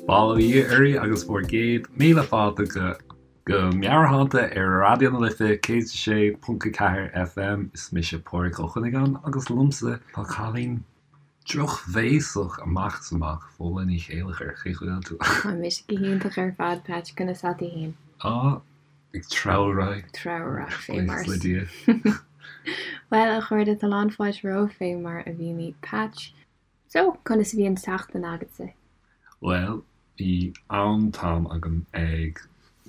Bail ó Dhia oraibh agus bhur gcéad míle fáilte go go Meabhairshláinte ar Raidió na Life 106.4 FM. Is mise Pádraig Ó Cuinneagáin agus liomsa tá cailín drochbhéasach amach is amach, Fódhla Ní Chéilleachair. Cén chaoi a bhfuil tú? Tá mise go hiontach ar fad, Patch. Conas tá tú fhéin? Á, ag treabhadh ar aghaidh. Treabhadh ar aghaidh fé mar Buíochas le Dia. Bhuel, a chairde, tá lán fáilte romhaibh fé mar a mhínigh Patch. So, conas a bhí an tseachtain agatsa? Bhuel, bhí an-am agam ag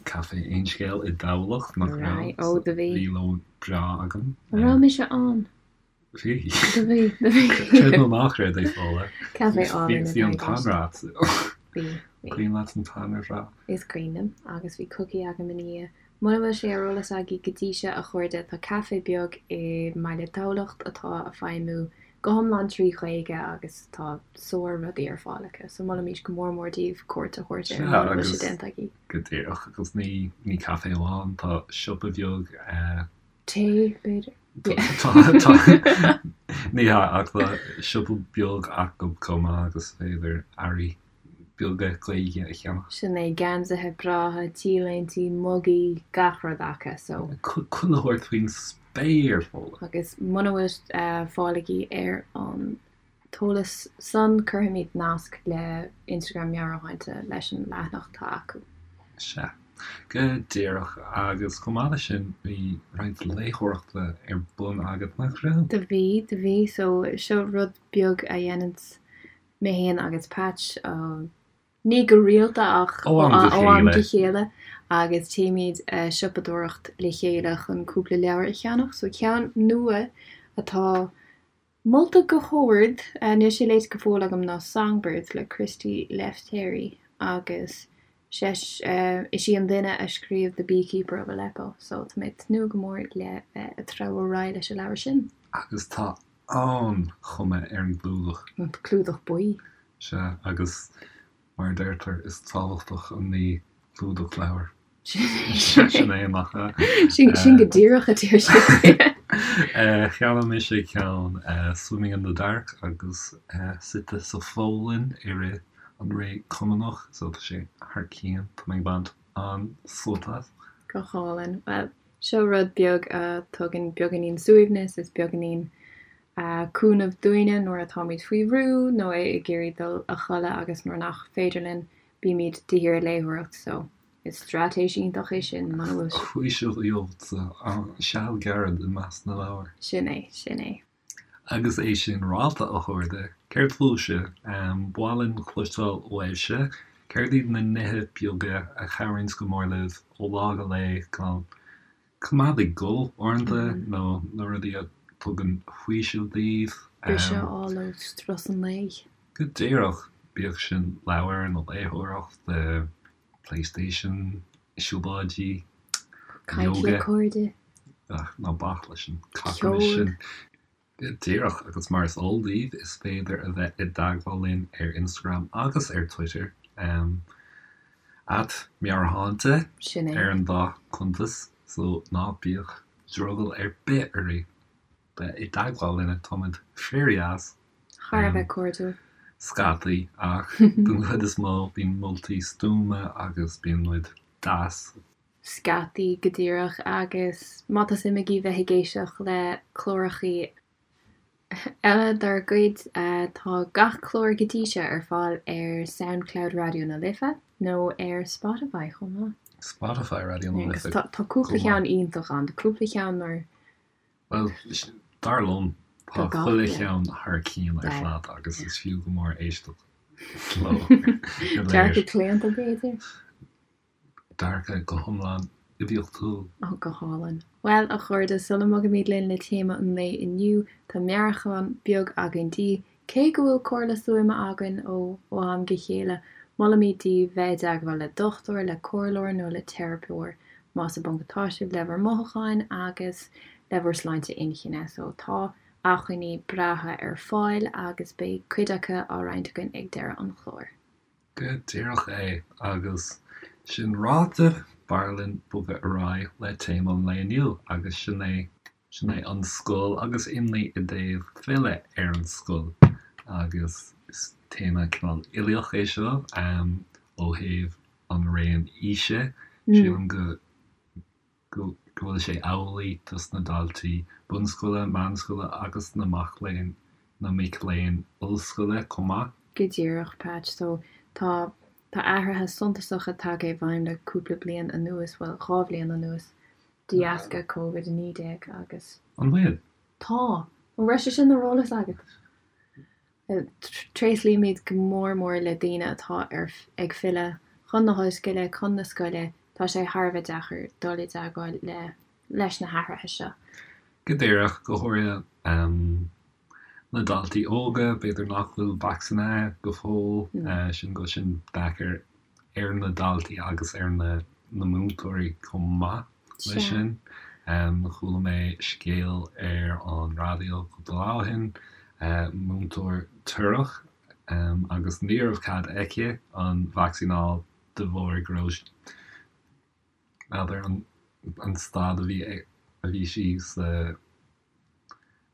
Caife Aon Scéal i dTamhlacht, nach raibh? Right, ó, do bhí. Bhí lón breá agam. An raibh mise ann? Bhí. Do bhí, do bhí. Creid nó ná creid é, Fódhla. Caife álainn Bhí an t-anraith. Bhí, bhí. Cuimhin leat an t-anraith? Is cuimhin liom, agus bhí cookie agam ina dhiaidh. Muna bhfuil sé ar eolas agaibh go dtí seo, a chairde, tá caife beag i mbaile Thamhlacht atá a feidhmiú go hiomlán 3 Ghaeilge agus tá sár rudaí ar fáil acu so molaimís go mór mór daoibh cuairt a thabhairt air muna bhfuil sé déanta agaibh. Go díreach, agus ní ní caife amháin, tá siopa beag eh. Tae, b'fhéidir. Tá, tá, ní hea, ach tá siopa beag acu chomh maith agus is féidir earraí beaga Gaeilge a cheannach. Sin é, geansaithe breátha, t-léintí, mugaí, gach rud acu, so. Chuile shórt faoin spéir, Fódhla. Agus muna bhfuil fáil agaibh ar an t-eolas san, cuirfimid nasc le Instagram Meabhairshláinte leis an leathanach atá acu. Sea, go díreach. Agus chomh maith leis sin, bhí roinnt léitheoireachta ar bun agat, nach raibh? Do bhí, do bhí. So, seo rud beag a dhéananns mé féin agus Patch, ní go rialta ach ó am go chéile, agus téimid a siopadóireacht le chéile chun cúpla leabhar a cheannach. So ceann nua atá molta go hard, níl sé léite go fóill agam, ná Songbirds le Christy Lefteri agus is í an duine a scríobh The Beekeeper of Aleppo so tá mé ag tnúth go mór le bheith ag treabhadh ar aghaidh leis an leabhar sin. Agus tá an-chuma ar an gclúdach. An clúdach buí. Sea, agus mar a deirtear, is tábhachtach an ní clúdach leabhair. Sin é, nach ea? Sin go díreach a deir siad. Cheannaigh mise ceann Swimming in the Dark agus suite sa Pholainn i rith an ré Cumannach, so tá sé thar cionn, tá mé ag baint an-sult as. Go hálainn. Bhuel, Seo rud beag a tugann beagáinín suaimhneas is beagáinín cúnamh dúinne nuair atáimid faoi bhrú nó ag iarraidh dul a chodladh agus nuair nach féidir linn bímid de shíor ag léitheoireacht so is straitéis iontach é sin muna bhfuil sé. Faoiseamh a gheobhadh seal gairid i measc na leabhar. Sin é, sin é. Agus é sin ráite, a chairde, céard fúibhse? Ba mhaith linn cloisteáil uaibhse. Céard iad na nithe beaga a chabhraíonns go mór libh ó lá go lá chun coimeád ag dul uaireanta nó na rudaí a tugann faoiseamh daoibh? Briseadh a fháil ó strus an lae. Go díreach, bíodh sin leabhar nó léitheoireacht, Playstation, siúlóidí, Caint le yoga. cairde. Ach ná bac leis an cacamas Ceol. sin. Go díreach, agus mar is eol daoibh, is féidir a bheith i dteagmháil linn ar Instagram agus ar Twitter, at Meabhairshláinte Sin é. ar an dá chuntas, so ná bíodh drogall ar bith oraibh bheith i dteagmháil linne, táimid fíordheas. Thar a bheith cairdiúil. Scataí, ach den chuid is mó bíonn moltaí stuama agus bíonn muid deas. Scataí, go díreach, agus má tá suim agaibh bheith ag éisteacht le clárachaí eile dár gcuid, tá gach clár go dtí seo ar fáil ar Soundcloud Raidió na Life nó ar Spotify chomh maith. Spotify Raidió na Life Agus tá cúpla ceann iontach ann, tá cúpla ceann mar Bhuel, dar liom, tá chuile cheann thar cionn ar fad agus is fiú go mór éisteacht leo go léir. Dearcadh claonta, b'fhéidir? Dearcadh go hiomlán oibiachtúil. Ó, go hálainn. Bhuel, a chairde, sula mbogaimid linn le téama an lae inniu, tá meabhrúchán beag againn daoibh. Cé go bhfuil comhairle stuama againn ó am go chéile, molaimid daoibh bheith i dteagmháil le dochtúir, le comhairleoir nó le teiripeoir más i bponc atá sibh le bhur mothúcháin agus le bhur sláinte inchinne. So tá acmhainní breátha ar fáil agus beidh cuid acu á roinnt againn ag deireadh an chláir. Go díreach é, agus sin ráite, b'fhearr linn bogadh ar aghaidh le téama an lae inniu agus sin é. Sin é an scoil agus imní i dtaobh filleadh ar an scoil agus is téama cineál uilíoch é seo. ó thaobh an raon aoise. Sílim go go bhfuil sé amhlaidh dos na daltaí bunscoile, meánscoile agus na mac léinn, na mic léinn ollscoile chomh maith. Go díreach, Patch. So, tá, tá athruithe suntasacha tagtha i bhfeidhm le cúpla bliain anuas, bhuel, 2 bhliain anuas, de dheasca Covid-19 agus. An bhfuil? Tá! An raibh sé sin ar eolas agat? Tréaslaímid go mór mór le daoine atá ar ag filleadh chun na hollscoile, chun na scoile. Tá sé thar a bheith deacair dul i dteagmháil le leis na hathruithe seo. Go díreach, go háirithe na daltaí óga, b'fhéidir nach bhfuil vacsaínithe go fóill, sin go bhfuil sin deacair ar na daltaí agus ar na múinteoirí chomh maith leis sin. Chuala mé scéal ar an raidió cúpla lá ó shin, múinteoir torrach agus ní raibh cead aici an vacsaín a fháil de bharr go raibh, n'fheadar, an staid a bhí a bhí sí sa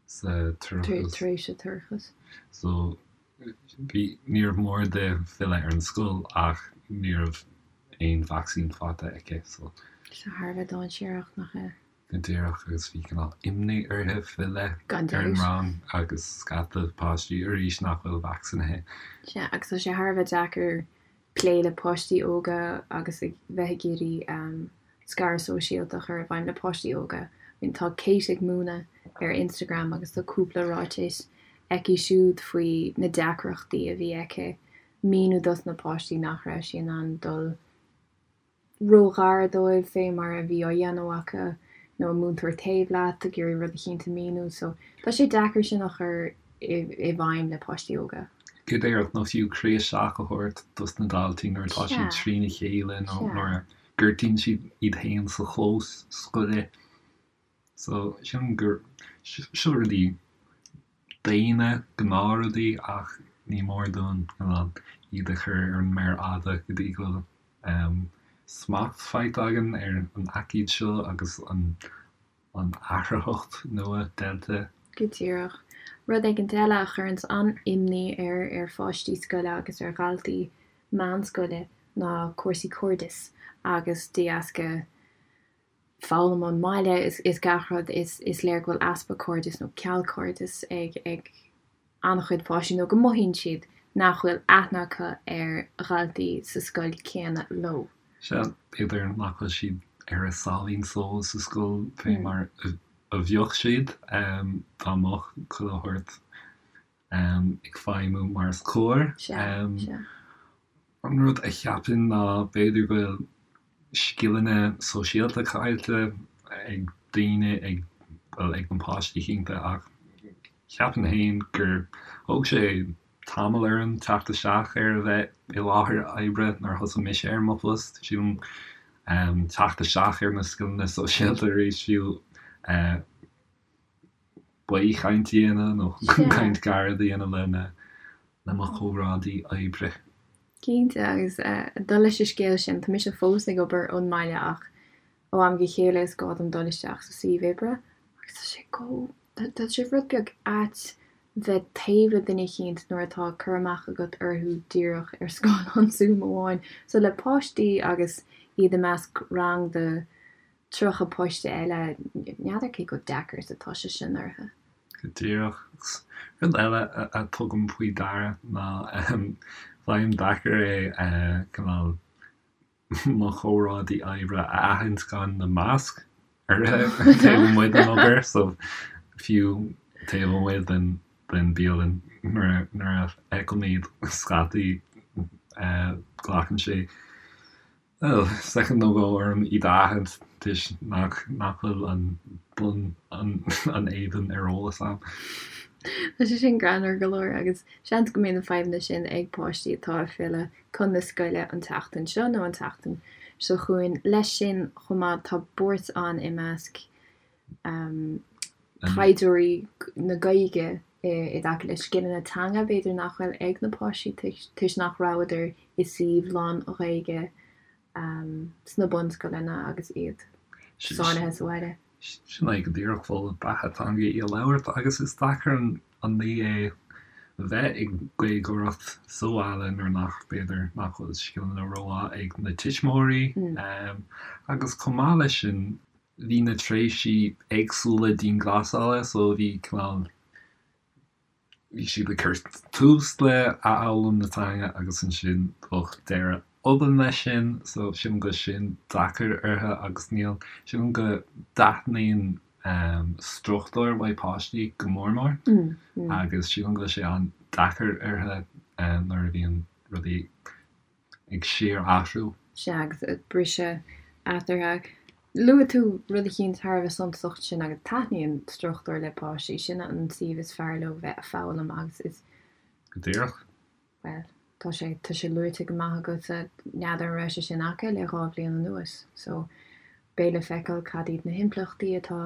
sa toircheas. Tar éis a toircheas. So, bhí, níorbh mór di filleadh ar an scoil ach ní raibh aon vacsaín faighte aici, so. So thar a bheith dainséarach, nach ea? Go díreach, agus bhí cineál imní uirthi filleadh ar an rang agus scata páistí arís nach bhfuil vacsaínithe. Sea, agus tá sé thar a bheith deacair plé le páistí óga agus ag bheith ag iarraidh scaradh sóisialta a chur i bhfeidhm le páistí óga. I mean tá Kate ag múineadh ar Instagram agus tá cúpla ráiteas aici siúd faoi na deacrachtaí a bhí aici míniú dos na páistí nach raibh sí in ann dul ró-ghar dóibh fé mar a bhí á dhéanamh acu nó an múinteoir taobh leat ag iarraidh rud eicínt a mhíniú so tá sé deacair sin a chur i bhfeidhm le páistí óga. Go díreach, nó fiú croí isteach a thabhairt dos na daltaí nuair atá siad trína chéile nó nuair a gortaíonn siad iad féin sa chlós scoile. So, sílim gur seo rudaí daonna, gnáthrudaí ach ní mór dúinn iad a chur ar an méar fhada go dtí go bhfuil smacht faighte againn ar an aicíd seo agus an an athraitheacht nua Delta. Go díreach. Rud éigint eile a chuireanns an-imní ar ar pháistí scoile agus ar dhaltaí meánscoile ná cúrsaí cairdis agus de dheasca foghlaim ón mbaile is gach rud is is léir go bhfuil easpa cairdis nó ceal cairdis ag ag an-chuid páistí nó go mothaíonn siad nach bhfuil aithne acu ar dhaltaí sa scoil céanna leo. Sea, b'fhéidir nach bhfuil siad ar a sáimhín só sa scoil fé mar a bheadh siad dá mbeadh chuile shórt ag feidhmiú mar is cóir. Sea, sea. An rud a cheapaim ná b'fhéidir go bhfuil scileanna sóisialta caillte ag daoine, ag, bhuel, ag na páistí cinnte ach cheapfainn féin gur thóg sé tamall orm teacht isteach ar a bheith i láthair oibre nuair a thosaigh mise ar mo phost. Sílim teacht isteach ar na scileanna sóisialta arís fiú baothchaint a dhéanamh nó caint ghairid a dhéanamh lena le mo chomrádaí oibre. Cinnte, agus dul leis an scéal sin, tá mise fós ag obair ón mbaile ach ó am go chéile is gá dom dul isteach sa suíomh oibre agus tá sé go, tá sé rud beag ait bheith taobh le duine eicínt nuair atá cur amach agat orthu díreach ar scáileán Zoom amháin. So le páistí agus iad i measc rang de 30 páiste eile, n'fheadar cé chomh deacair is atá sé sin orthu. Go díreach. Rud eile a tugaim faoi deara ná faighim deacair é cineál mo chomrádaí oibre a aithint gan na masc orthu taobh amuigh den obair, so fiú taobh amuigh den den bialann nuair a fheicim iad scaití glacann sé Bhuel, soicind nó dhó orm iad a aithint toisc nach nach bhfuil an bun an an éadan ar eolas a'm. Tá sé sin greannmhar go leor agus seans go mbeidh na fadhbanna sin ag páistí atá ag filleadh chun na scoile an tseachtain seo nó an tseachtain seo chugainn. Leis sin chomh maith tá buairt ann i measc taighdeoirí na Gaeilge i dtaca le scileanna teanga b'fhéidir nach bhfuil ag na páistí toisc nach rabhadar i suíomh lán-Ghaeilge sna bunscoileanna agus iad sáinnithe sa bhaile. Sin é go díreach, bhuel, beatha teanga í a labhairt agus is deacair an ní é. bheith ag Gaeilgeoireacht sa bhaile nuair nach, b'fhéidir, nach bhfuil scileanna rómhaith ag na tuismitheoirí. Agus chomh maith leis sin, bhí na tréimhsí éagsúla dianghlasála so bhí cineál, bhí siad ag cur tús le athfhoghlaim na teanga agus ansin bheadh deireadh obann leis sin so sílim go bhfuil sin deacair orthu agus níl, sílim go dtaitníonn struchtúr uaidh páistí go mór mór agus sílim go bhfuil sé an-deacair orthu nuair a bhíonn rudaí ag síor-athrú. Sea, agus briseadh eatarthu. Luaigh tú rud eicínt thar a bheith suntasach ansin agus taitníonn struchtúr le páistí, sin an suíomh is fearr leo bheith a' foghlaim agus is. Go díreach. Bhuel, tá sé, tá sé luaite go maith agatsa, n'fheadar an raibh sé sin acu le dhá bhliain anuas. So, beidh le feiceáil cad iad na himpleachtaí atá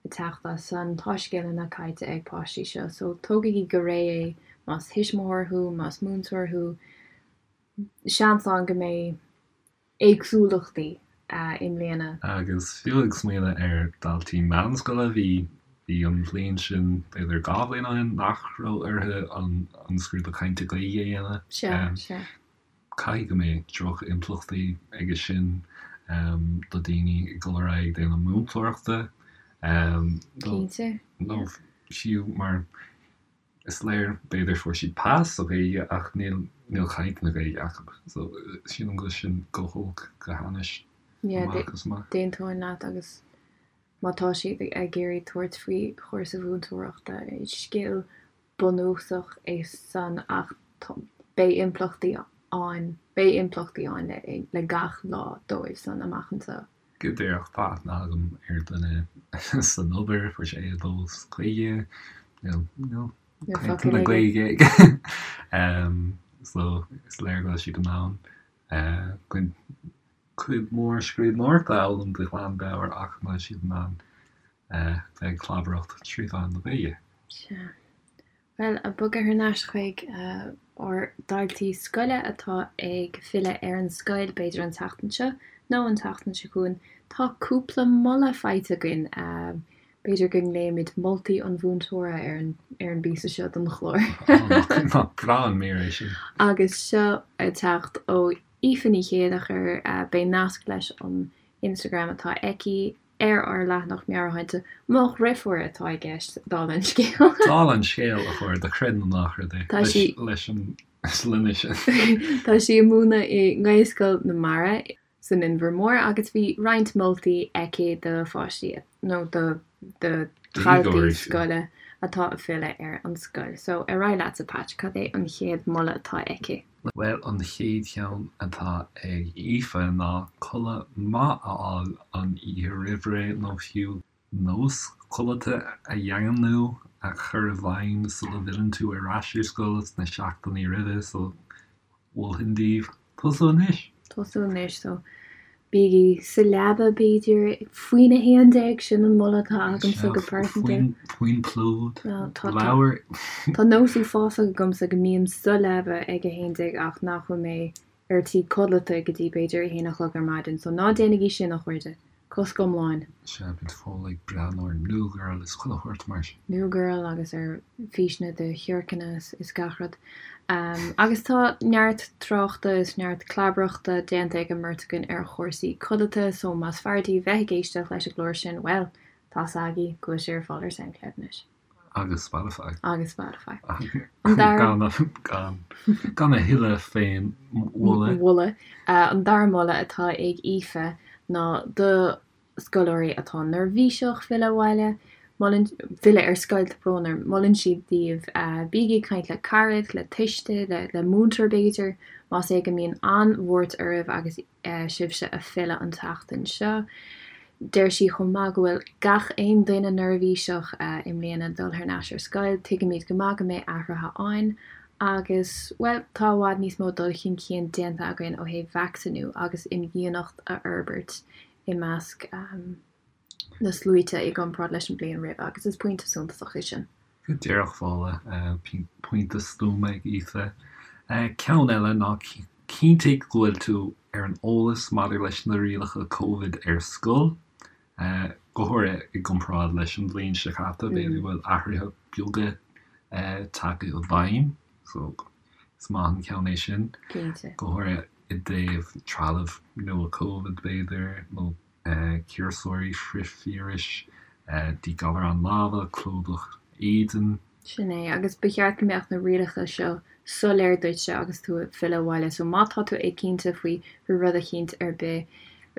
ag teacht as san. Tá scileanna caillte ag páistí seo so tógaigí go réidh é más tuismitheoir thú, más múinteoir thú. Seans ann go mbeidh éagsúlachtaí i mbliana. Agus fiú ag smaoineamh ar dhaltaí meánscoile, bhí bhí an bhliain sin, b'fhéidir 2 bhliain ó shin, nach raibh orthu an an scrúdú cainte Gaeilge a dhéanamh. Sea, sea. Caithfidh go mbeidh droch-impleachtaí aige sin do daoine ag dul ar aghaidh ag déanamh múinteoireachta. Cinnte. Nó fiú mar is léir, b'fhéidir fuair siad pas sa Ghaeilge ach níl níl caint na Gaeilge acu. So sílim go bhfuil sin go holc go hainnis amach is amach. D'aontóinn leat agus má tá siad ag iarraidh tabhairt faoi chúrsa mhúinteoireachta, scil bunúsach é san ach beidh impleachtaí ann, beidh impleachtaí ann le gach lá dóibh san amach anseo. Go díreach, tá aithne agam ar duine san obair, fuair sé A2 sa Ghaeilge, níl, níl caint na Gaeilge aige. So is léir go bhfuil siad in ann cuid mhór scríbhneoireachta a fhoghlaim de ghlanmheabhair ach níl siad in ann bheith ag clabaireacht trí mheán na Gaeilge. Sea. Bhuel, ag bogadh thar n-ais chuig ár ndaltaí scoile atá ag filleadh ar an scoil, b'fhéidir an tseachtain seo nó an tseachtain seo chugainn, tá cúpla moladh faighte againn. B'fhéidir go nglaoimid moltaí an mhúinteora ar an ar an bpíosa seo den chlár. Nach breá an mír é sin. Agus seo ag teacht ó Aoife Ní Chéilleachair, beidh nasc leis an Instagram atá aici ar ár leathanach meabhairshláinte. Mo dhrifiúr atá i gceist, dála an scéil. Dála an scéil, a chairde, creid nó ná creid é, Tá sí. leis an sloinne sin. Tá sí ag múineadh i nGaelscoil na Mara san Inbhear Mór agus bhí roinnt moltaí aici do pháistí nó do do dhaltaí scoile atá ag filleadh ar an scoil. So, ar aghaidh leatsa Patch, cad é an chéad mholadh atá aici? Bhuel, an chéad cheann atá ag Aoife ná codladh maith a fháil an oíche roimh ré nó fiú nós codlata a dhaingniú, a chur i bhfeidhm sula bhfilleann tú ar ais ar scoil sna seachtainí roimhe, so mholfainn daoibh tosú anois! Tosú anois, so Bígí sa leaba, b'fhéidir, faoina 11, sin an moladh atá agamsa go pearsanta. Faoin bplúd, leabhar. Tá nós uafásach agamsa go mbím sa leaba ag 11 ach nach bhfuil mé ar tí codlata go dtí b'fhéidir 1 a chlog ar maidin, so ná déanaigí sin, a chairde. Cosc iomlán. Sea, bíonn Fódhla ag breathnú ar New Girl is chuile shórt mar sin. New Girl agus ar físeanna de shiorcanna is gach rud. Agus tá neart tráchta is neart clabaireachta déanta ag an mbeirt againn ar chúrsaí codlata so más fearr daoibh bheith ag éisteacht leis an gclár sin, bhuel, tá's agaibh go bhfuil sé ar fáil ar Soundcloud anois. Agus Spotify. Agus Spotify. An dara. Gan, gan a thuilleadh féin mholadh. Mholadh. An dara moladh atá ag Aoife ná do scoláirí atá neirbhíseach filleadh abhaile, molann, filleadh ar scoil, tá brón orm, molann sí daoibh bígí ag caint le carad, le tuiste, le, le múinteoir b'fhéidir, más é go mbíonn an-bhuairt oraibh agus sibhse ag filleadh an tseachtain seo. Deir sí chomh maith go bhfuil gach aon duine neirbhíseach i mbliana dul thar n-ais ar scoil, tuigimid go maith go mbeidh athruithe ann agus, bhuel, tá i bhfad níos mó dul chun cinn déanta againn ó thaobh vacsaíniú agus imdhíonacht a fhorbairt i measc na sluaite i gcomparáid leis an bhliain roimhe agus is pointe suntasach é sin. Go díreach, Fódhla, pointe stuama ag Aoife. Ceann eile ná cinntigh go bhfuil tú ar an eolas maidir leis na rialacha Covid ar scoil, go háirithe i gcomparáid leis an bhliain seo caite, b'fhéidir go bhfuil athruithe beaga. tagtha i bhfeidhm so is maith an ceann é sin. Cinnte. Go háirithe i dtaobh trealamh nua Covid b'fhéidir nó ciumhaiseoirí frithvíris, díghalarán láimhe, clúdach éadain. Sin é, agus ba cheart go mbeadh na rialacha seo soiléir duitse agus tú ag filleadh abhaile, so má tá tú éiginnte faoi rud eicínt ar bith,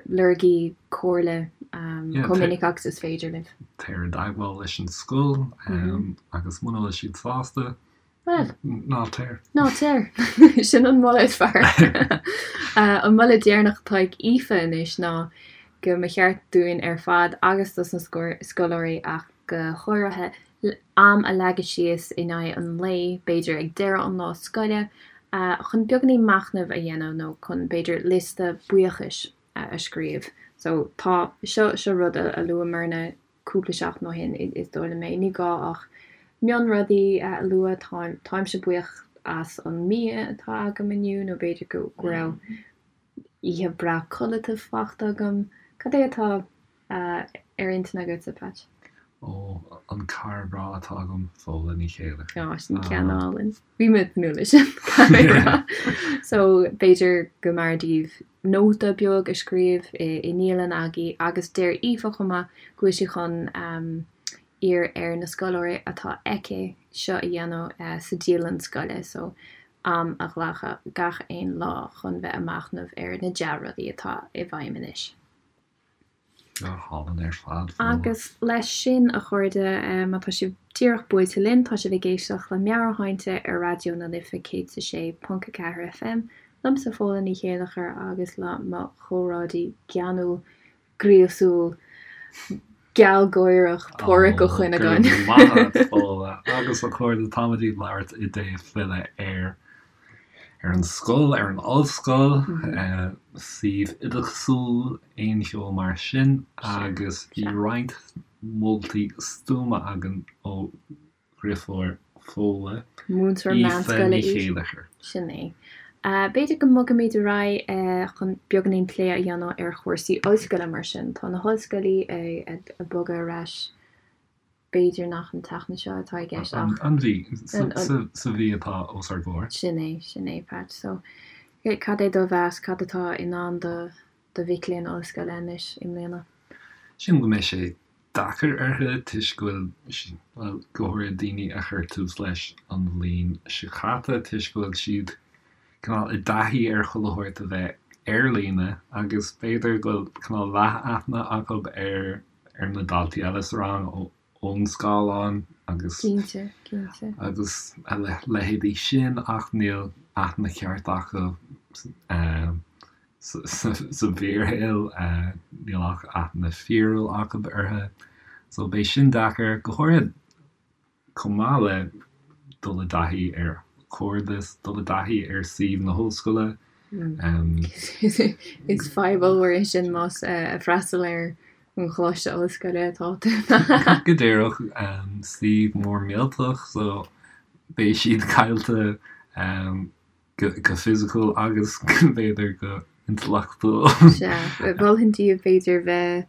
lorgaigí comhairle chomh minic agus is féidir libh. Téir i dteagmháil leis an scoil agus muna bhfuil siad sásta, Bhuel. Ná téir. Ná téir. Sin an moladh is fearr. An moladh deireanach atá ag Aoife anois ná go mba cheart dúinn ar fad agus dos na scoláirí ach go háirithe, am a leagadh síos in aghaidh an lae, b'fhéidir ag deireadh an lá scoile, chun beagáinín machnaimh a dhéanamh nó chun b'fhéidir liosta buíochais a scríobh. So tá, seo, seo rud a luamarna cúpla seachtain ó shin, is dóigh liom é. Ní gá ach mionrudaí a lua, táimse buíoch as an mbia atá agam inniu nó b'fhéidir go raibh oíche breá codlata fachta agam. Cad é atá ar intinn agatsa, Patch? Ó, an cara breá atá agam, Fódhla Ní Chéilleachair. Á, sin ceann álainn. Bhí mé ag tnúth leis sin, caithfidh mé a rá. So, b'fhéidir go mb'fhearr daoibh nóta beag a scríobh i ndialann agaibh agus deir Aoife chomh maith go bhfuil sí chun iarraidh ar na scoláirí atá aici seo a dhéanamh sa dialann scoile so am a ghlacadh gach aon lá chun bheith ag machnamh ar na dea-rudaí atá i bhfeidhm anois. Go hálainn ar fad. Agus leis sin, a chairde, má tá sibh díreach buailte linn, tá sibh ag éisteacht le Meabhairshláinte ar Raidió na Life 106.4 FM, liomsa Fódhla Ní Chéilleachair agus le mo chomrádaí geanúil, gríosúil, gealgháireach, Pádhraic Ó Cuinneagáin. Go raibh maith agat, Fódhla. Agus a chairde, táimid ag labhairt i dtaobh filleadh ar ar an scoil, ar an ollscoil, suíomh oideachasúil, aon cheo mar sin agus bhí roinnt moltaí stuama againn ó dheirfiúr Fódhla, Múinteoir Aoife meánscoile Ní í. Chéilleachair. Sin é. B'fhéidir go mbogfaimid ar aghaidh chun beagáinín plé a dhéanamh ar chúrsaí ollscoile mar sin. Tá na hollscoilí ag bogadh ar ais B'fhéidir nach an tseachtain seo atá i gceist ach. An mhí, sa mhí atá os ár gcomhair. Sin é, sin é, Pat. So, cad é do mheas, cad atá i ndán do do mhic léinn ollscoile anois i mbliana? Sílim go mbeidh sé deacair orthu toisc go bhfuil, bhuel, go háirithe daoine a chuir tús leis an bhliain seo caite, toisc go bhfuil siad cineál i dtaithí ar chuile shórt a bheith ar líne agus b'fhéidir go bhfuil cineál leath-aithne acu ar ar na daltaí eile sa rang ón scáileán agus Cinnte, cinnte. agus a leithéidí sin ach níl aithne cheart acu sa bhfíorshaol, níl ach aithne fíorúil acu orthu. So beidh sin deacair, go háirithe chomh maith le dul i dtaithí ar chairdeas, dul i dtaithí ar suíomh na hollscoile. Is fadhb ollmhór é sin más ag freastal ar an choláiste ollscoile atá tú. Go díreach, suíomh mór millteach so beidh siad caillte go fisiciúil agus b'fhéidir go intleachtúil. Sea, mholfainn daoibh b'fhéidir bheith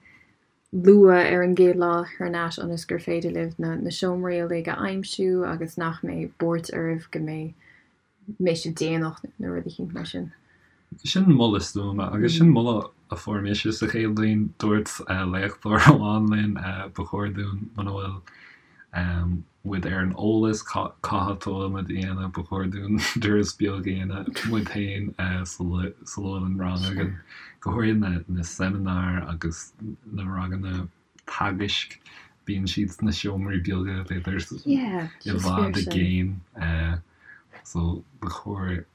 luath ar an gcéad lá thar n-ais ionas gur féidir libh na na seomraí uilig a aimsiú agus nach mbeidh buairt oraibh go mbeidh mbeidh sibh déanach nó rud eicínt mar sin. Sin moladh stuama agus sin moladh a fuair mise sa chéad bhliain. Dúirt léachtóir amháin linn ba chóir dúinn muna bhfuil muid ar an eolas cá háit a bhfuil muid a dhéanamh, ba chóir dúinn turas beag a dhéanamh muid féin sula bhfuil an rang againn, go háirithe na seimineáir agus na ranganna teagaisc, bíonn siad sna seomraí beaga, b'fhéidir i bhfad i gcéin, so ba chóir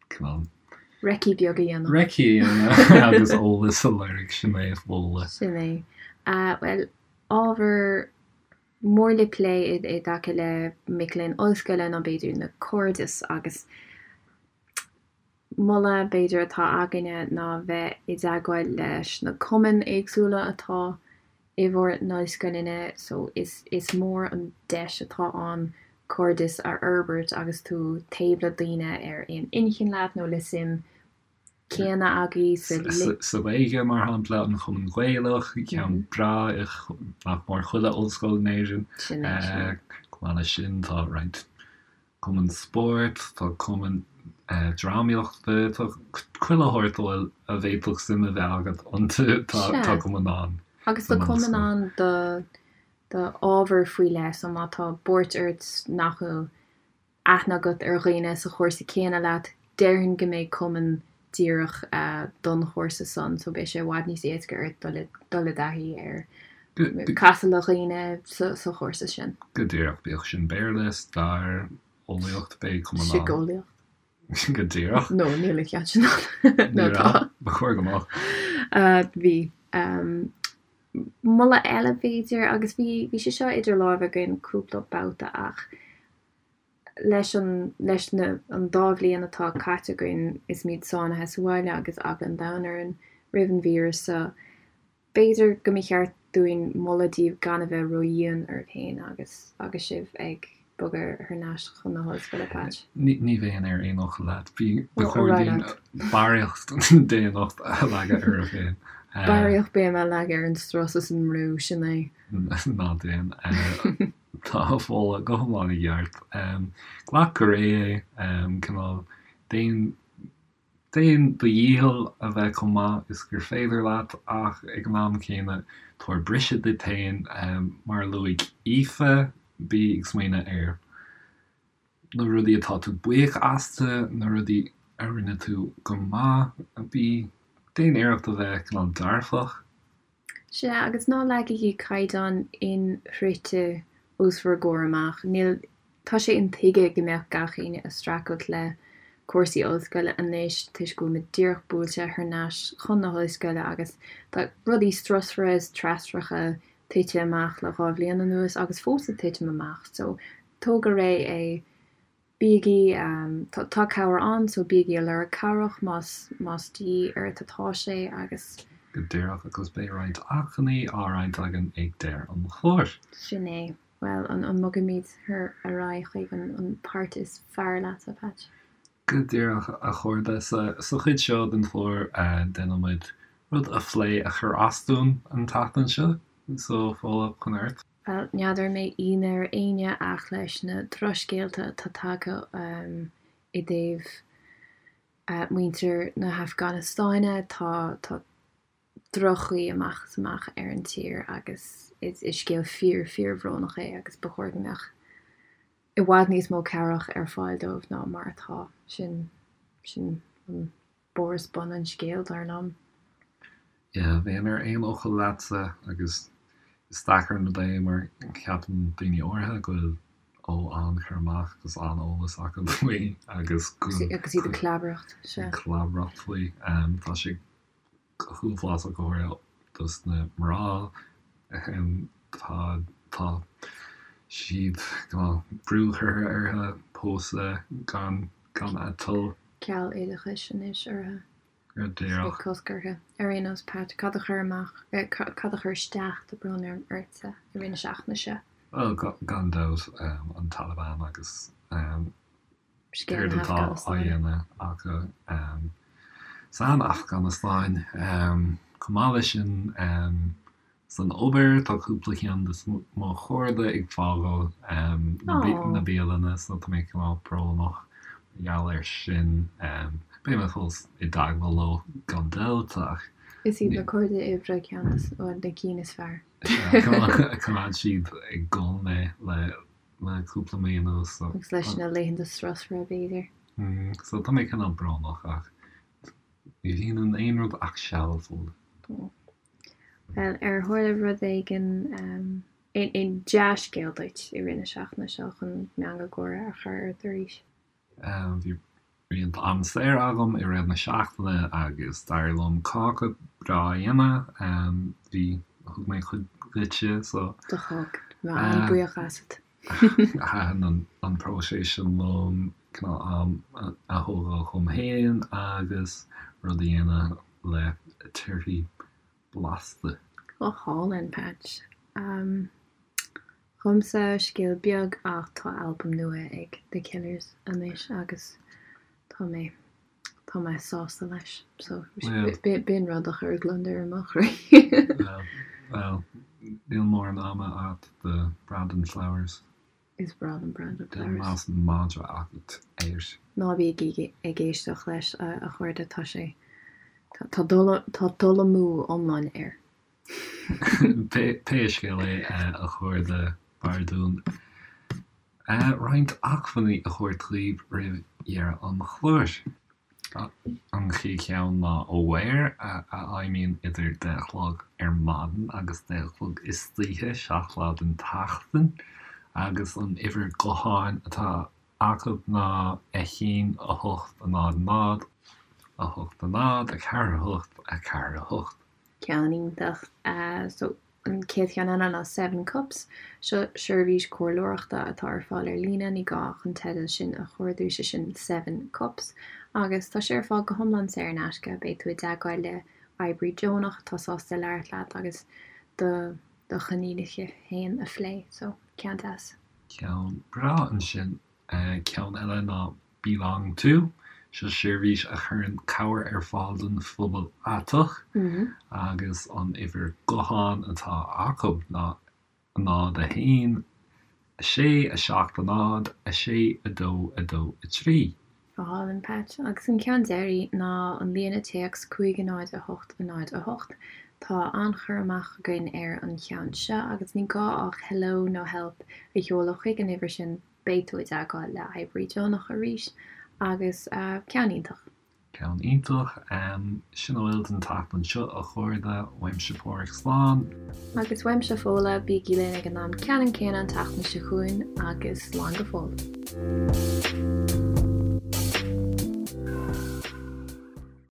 cineál. Recce beag a dhéanamh. Recce a dhéanamh agus eolas a lorg, sin é a mholadh. Sin é. Bhuel, ábhar mór le plé i dtaca le mic léinn ollscoile ná b'fhéidir na cairdis agus moladh b'fhéidir atá againne ná bheith i dteagmháil leis na cumainn éagsúla atá i bhur n-ollscoileanna so is is mór an deis atá ann cairdeas a fhorbairt agus tú taobh le daoine ar aon inchinn leat nó le suim céanna agaibh sa. Sa Ghaeilge, mar shampla, an Chumann Gaelach, ceann breá i nach mór chuile ollscoil in Éirinn. Sin é, sin é. Chomh maith leis sin, tá roinnt cumann spóirt, tá cumann drámaíochta, tá chuile shórt a bhfuil, a bhféadfadh suim a bheith agat iontu, tá cumann ann. Agus tá cumann ann do do ábhar faoi leith, so má tá buairt ort nach bhfuil aithne agat ar dhaoine sa chúrsa céanna leat, déarfainn go mbeidh cumann díreach don chúrsa san, so beidh sé i bhfad níos éasca ort dul i dul i dtaithí ar casadh le dhaoine sa chúrsa sin. Go díreach, bíodh sin Béarla, stair, eolaíocht, beidh cumann ann. Síceolaíocht. Go díreach. No, níl an ceann sin ann. Nó tá. Ba chóir go mbeadh. Bhí. Moladh eile b'fhéidir, agus bhí bhí sé seo idir lámha againn cúpla babhta ach leis an leis na an dá bhliain atá caite againn is muid sáinnithe sa bhaile agus eagla an domhain orainn roimh an víreas seo, b'fhéidir go mba cheart dúinn moladh daoibh gan a bheith ródhian oraibh féin agus agus sibh ag bogadh thar n-ais chun na hollscoile, Patch. Ní ní bheinn ar aon fhocal leat. Bhí ba chóir dúinn barraíocht daonnacht a leagadh oraibh féin. Barraíocht béime a leagadh ar an strus is an mbrú, sin é. Ná déan. Tá Fódhla go hiomlán i gceart. Glac go réidh é, cineál, déan, déan do dhícheall a bheith chomh maith is gur féidir leat ach ag an am céanna tabhair briseadh duit féin. Mar a luaigh Aoife, bí ag smaoineamh ar na rudaí atá tú buíoch astu, na rudaí a rinne tú go maith, bí, déan iarracht a bheith cineál dearfach. Sea, agus ná leagaigí caighdeán inshroichte os bhur gcomhair amach. Níl, tá sé intuigthe go mbeadh gach éinne ag streachailt le cúrsaí ollscoile anois toisc go bhfuil muid díreach buailte thar n-ais chun na hollscoile agus tá rudaí strusmhara is treascracha tite amach le 2 bhliain anuas agus fós ag titim amach. So, tóg go réidh é. Bígí, tá cabhair ann so bígí ag lorg cabhrach más más de dhíth ort atá sé agus. Go díreach agus beidh roinnt acmhainní á roinnt againn ag deireadh an chláir. Sin é. Bhuel, an an mbogfaimid ar ar aghaidh chuig an an páirt is fearr leat, a Patch? Go díreach, a chairde. Sa sa chuid seo den chlár déanann muid rud a phlé a chuir as dúinn an tseachtain seo. So, Fódhla, chun ort. Bhuel, n'fheadar an mbeidh ionadh ar éinne ach leis na drochscéalta atá tagtha i dtaobh muintir na hAfganastáine, tá tá droch-chaoi amach is amach ar an tír agus is scéal fíor fíorbhrónach é agus ba chóir go mbeadh i bhfad níos mó cabhrach ar fáil dóibh ná mar atá. Sin sin an barr is bun an scéil, dar liom. Yeah, bheinn ar aon fhocal leatsa agus is deacair an rud é mar ceapann daoine áirithe go bhfuil ó an-chur amach agus an-eolas acu faoi agus go Agus iad ag clabaireacht, sea. Ag clabaireacht faoi. Tá sé go huafásach go háirithe dos na mná. Tá tá siad tá brú curtha orthu pósadh gan gan a dtoil. Ceal oideachais anois orthu. Go díreach. Cosc orthu. Ar aon nós, Pat, cad a chuir amach, cad a chuir isteach, tá brón orm, ortsa i rith na seachtaine seo? Bhuel, gan dabht, an Taliban agus Scéal céard na atá á hAfganastáine. dhéanamh acu san Afganastáin. Chomh maith leis sin, San obair, tá cúpla ceann de mo chairde ag fágáil na bialanna so tá mé cineál brónach mar gheall air sin. Beidh mé fós i dteagmháil leo gan dabht ach. Is iad na cairde oibre ceann de na cinn is fearr. Choimeád siad ag gol mé le cúpla mí anuas so. Agus leis na laethanta strusmhara b'fhéidir. So tá mé cineál brónach ach ní bhíonn in aon rud ach seal, Fódhla. Bhuel, ar tharla rud éigin, aon dea-scéal duit i rith na seachtaine seo chun meangadh gáire a chur ort arís? Bhí roinnt am saor agam i rith na seachtaine agus d'éirigh liom cáca breá a dhéanamh. Bhí, thug mé cuid duitse so. Do thug, tá mé an-bhuíoch asat. Thaitin an próiseas sin liom, cineál am a thógáil dhom féin agus rud a dhéanamh le torthaí blasta. Go hálainn, Patch. Dhomsa, scéal beag ach tá albam nua ag The Killers anois agus tá mé, tá mé sásta leis. So, b'in rud a chuir gliondar i mo chroí. Bhuel, níl mórán ama agat do Brandon Flowers. Is breá liom Brandon Flowers. Más madra agat air. Ná bígí ag éisteacht leis, a chairde, tá sé, tá dul amú iomlán air. Pé scéal é, a chairde, b'fhearr dúinn roinnt acmhainní a thabhairt daoibh roimh dheireadh an chláir. An chéad cheann ná Aware, a fheidhmíonn idir 10 a chlog ar maidin agus 10 a chlog istoíche, 7 lá den tseachtain, agus an uimhir gutháin atá acu ná 1 8 0 0 8 0 4 8 4 8. Ceann iontach. So, an chéad cheann eile ná Seven Cups. Seo seirbhís comhairleoireachta atá ar fáil ar líne, ní gá ach an teideal sin a chuardú, sé sin Seven Cups. Agus tá sé ar fáil go hiomlán saor in aisce. Beidh tú i dteagmháil le oibrí deonach atá sásta labhairt leat agus do do choinníollacha féin a phlé. So, ceann deas. Ceann breá ansin. Ceann eile ná Belong To, seo seirbhís a chuireann cabhair ar fáil don phobal aiteach agus an uimhir gutháin atá acu ná 0 1 6 7 0 6 2 2 3. Go hálainn, Pat. Agus an ceann deiridh ná an líne téacs 5 0 8 0 8. Tá an-chur amach againn ar an cheann seo agus ní gá ach hello nó help a sheoladh chuig an uimhir sin Beidh tú i dteagmháil le oibrí deonach arís agus ceann iontach. Ceann iontach. Sin a bhfuil don tseachtain seo, a chairde. Uaimse Páraic, slán. Agus uaimse Fódhla, bígí linn ag an am ceannann céanna an tseachtain seo chugainn agus slán go fóill.